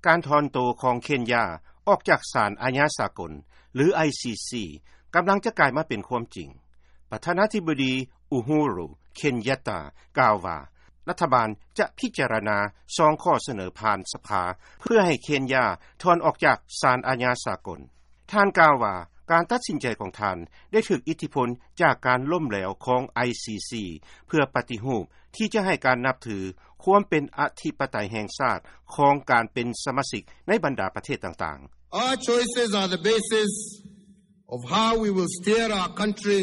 ການຖອນໂຕຂອງເຄນຢາອອກຈາກສານອາຍາສາກົນ ຫຼື ໄອຊີຊີ ກຳລັງຈະກາຍມາເປັນຄວາມຈິງ. ປະທານາທິບໍດີ ອູໂຮຣູ ເຄນຍັດຕາ ກ່າວວ່າ ລັດຖະບານຈະພິຈາລະນາສອງຂໍ້ສະເໜີຜ່ານສະພາ ເພື່ອໃຫ້ເຄນຢາຖອນອອກຈາກສານອາຍາສາກົນ. ທ່ານກ່າວວ່າ ການຕັດສິນໃຈຂອງທ່ານໄດ້ຖືກອິດທິພົນຈາກການລົ້ມແຫຼວຂອງ ໄອຊີຊີ ເພື່ອປະຕິຮູບທີ່ຈະໃຫ້ການນັບຖືຄວາມເປັນອະທິປະໄຕແຫ່ງຊາດຂອງການເປັນສະມາຊິກໃນບັນດາປະເທດຕ່າງໆ. Our choices are the basis of how we will steer our country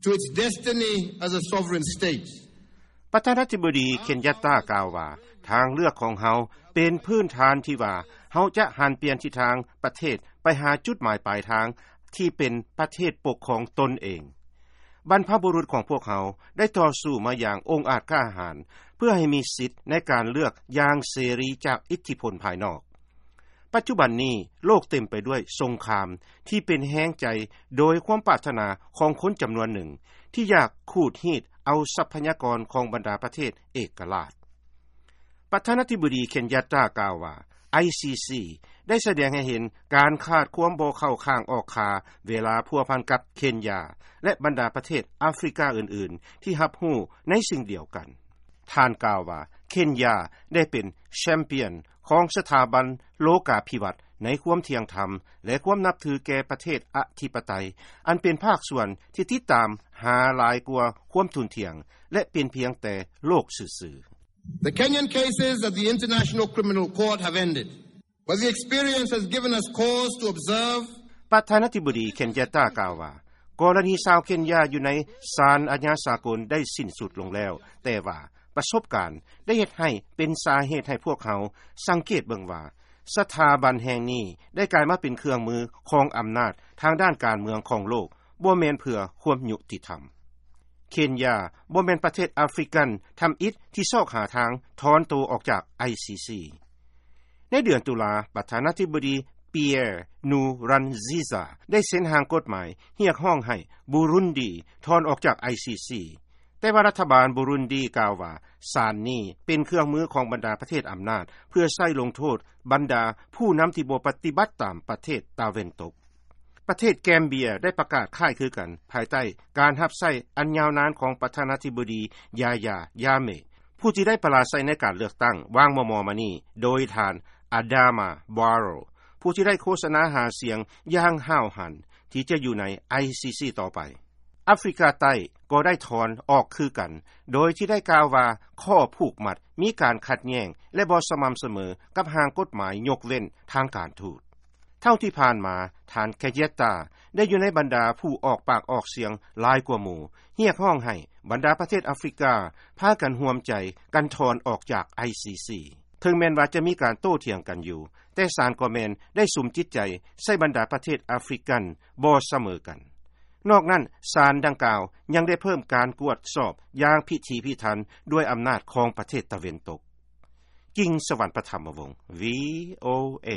to its destiny as a sovereign state. ປະທານາທິບໍດີ ເຄນຍັດຕາ ກ່າວວ່າ ທາງເລືອກຂອງເຮົາເປັນພື້ນຖານທີ່ວ່າ ເຮົາຈະຫັນປ່ຽນທິດທາງປະເທດໄປຫາຈຸດໝາຍປາຍທາງທີ່ເປັນປະເທດປົກຄອງຕົນເອງ. ບັນພະບຸລຸດຂອງພວກເຮົາໄດ້ຕໍ່ສູ້ມາຢ່າງອົງອາດກ້າຫານ ເພື່ອໃຫ້ມີສິດໃນການເລືອກຢ່າງເສລີຈາກອິດທິພົນພາຍນອກ. ປັດຈຸບັນນີ້ໂລກເຕັມໄປດ້ວຍສົງຄາມທີ່ເປັນແຮງໃຈໂດຍຄວາມປາດຖະໜາຂອງຄົນຈຳນວນໜຶ່ງ ທີ່ຢາກຂູດຮີດເອົາຊັບພະຍາກອນຂອງບັນດາປະເທດເອກະລາດ. ປະທານາທິບໍດີ ເຄນຍັດຕາ ກ່າວວ່າ ໄອຊີຊີ ໄດ້ສະແດງໃຫ້ເຫັນການຂາດຄວາມບໍ່ເຂົ້າຂ້າງອອກຂ້າ ເວລາພົວພັນກັບເຄນຢາ ແລະ ບັນດາປະເທດອາຟຣິກາອື່ນໆ ທີ່ຮັບຮູ້ໃນສິ່ງດຽວກັນ. ທ່ານກ່າວວ່າ ເຄນຢາໄດ້ເປັນແຊມປຽນຂອງສະຖາບັນໂລກາພິວັດໃນຄວາມທ່ຽງທຳ ແລະ ຄວາມນັບຖືແກ່ປະເທດອະທິປະໄຕ ອັນເປັນພາກສ່ວນທີ່ຕິດຕາມຫາຫຼາຍກວ່າຄວາມທຸ່ນທ່ຽງ ແລະ ເປັນພຽງແຕ່ໂລກຊື່ໆ. The Kenyan cases at the International Criminal Court have ended, but the experience has given us cause to observe. ປະທານາທິບໍດີ ເຄນຍັດຕາ ກ່າວວ່າ ກໍລະນີຊາວເຄນຢາຢູ່ໃນສານອາຍາສາກົນໄດ້ສິ້ນສຸດລົງແລ້ວ, ແຕ່ວ່າປະສົບການໄດ້ເຮັດໃຫ້ເປັນສາເຫດໃຫ້ພວກເຮົາສັງເກດເບິ່ງວ່າ ສະຖາບັນແຫ່ງນີ້ໄດ້ກາຍມາເປັນເຄື່ອງມືຂອງອຳນາດທາງດ້ານການເມືອງຂອງໂລກ, ບໍ່ແມ່ນເພື່ອຄວາມຍຸຕິທຳ. ເຄນຢາບໍ່ແມ່ນປະເທດອາຟຣິກັນທຳອິດທີ່ຊອກຫາທາງຖອນໂຕອອກຈາກ ໄອຊີຊີ. ໃນເດືອນຕຸລາ, ປະທານາທິບໍດີ ປີແອຣ ນູຣັນຊີຊາ ໄດ້ເຊັນຮ່າງກົດໝາຍຮຽກຮ້ອງໃຫ້ບູລຸນດີຖອນອອກຈາກ ໄອຊີຊີ, ແຕ່ວ່າລັດຖະບານບູລຸນດີກ່າວວ່າ ສານນີ້ເປັນເຄື່ອງມືຂອງບັນດາປະເທດອຳນາດ ເພື່ອໃຊ້ລົງໂທດບັນດາຜູ້ນຳທີ່ບໍ່ປະຕິບັດຕາມປະເທດຕາເວັນຕົກ. ປະເທດແກມເບຍໄດ້ປະກາດຄ້າຍຄືກັນ ພາຍໃຕ້ການຮັບໃຊ້ອັນຍາວນານຂອງປະທານາທິບໍດີ ຢາຢາ ຢາເມ ຜູ້ທີ່ໄດ້ປະລາໄຊໃນການເລືອກຕັ້ງຫວ່າງມໍ່ໆມານີ້ ໂດຍທ່ານ ອາດາມາ ບາໂຣ ຜູ້ທີ່ໄດ້ໂຄສະນາຫາສຽງຢ່າງຫ້າວຫັນທີ່ຈະຢູ່ໃນ ໄອຊີຊີ ຕໍ່ໄປ. ອາຟຣິກາໃຕ້ກໍໄດ້ຖອນອອກຄືກັນ ໂດຍທີ່ໄດ້ກ່າວວ່າຂໍ້ຜູກມັດມີການຂັດແຍ່ງ ແລະ ບໍ່ສະໝ່ຳສະເໝີກັບຮ່າງກົດໝາຍຍົກເວັ້ນທາງການທູດ. ເທົ່າທີ່ຜ່ານມາ, ທ່ານ ເຄເຢດຕາ ໄດ້ຢູ່ໃນບັນດາຜູ້ອອກປາກອອກສຽງຫຼາຍກວ່າໝູ່ ຮຽກຮ້ອງໃຫ້ບັນດາປະເທດອາຟຣິກາພາກັນຮ່ວມໃຈກັນຖອນອອກຈາກ ໄອຊີຊີ. ເຖິງແມ່ນວ່າຈະມີການໂຕ້ຖຽງກັນຢູ່, ແຕ່ສານກໍແມ່ນໄດ້ສຸມຈິດໃຈໃສ່ບັນດາປະເທດອາຟຣິກັນບໍ່ສະເໝີກັນ. ນອກນັ້ນ, ສານດັ່ງກ່າວຍັງໄດ້ເພີ່ມການກວດສອບຢ່າງພິຖີພິຖັນດ້ວຍອຳນາດຂອງປະເທດຕາເວັນຕົກ. ກິງ ສະຫວັນປະທຳມະວົງ ວີໂອເອ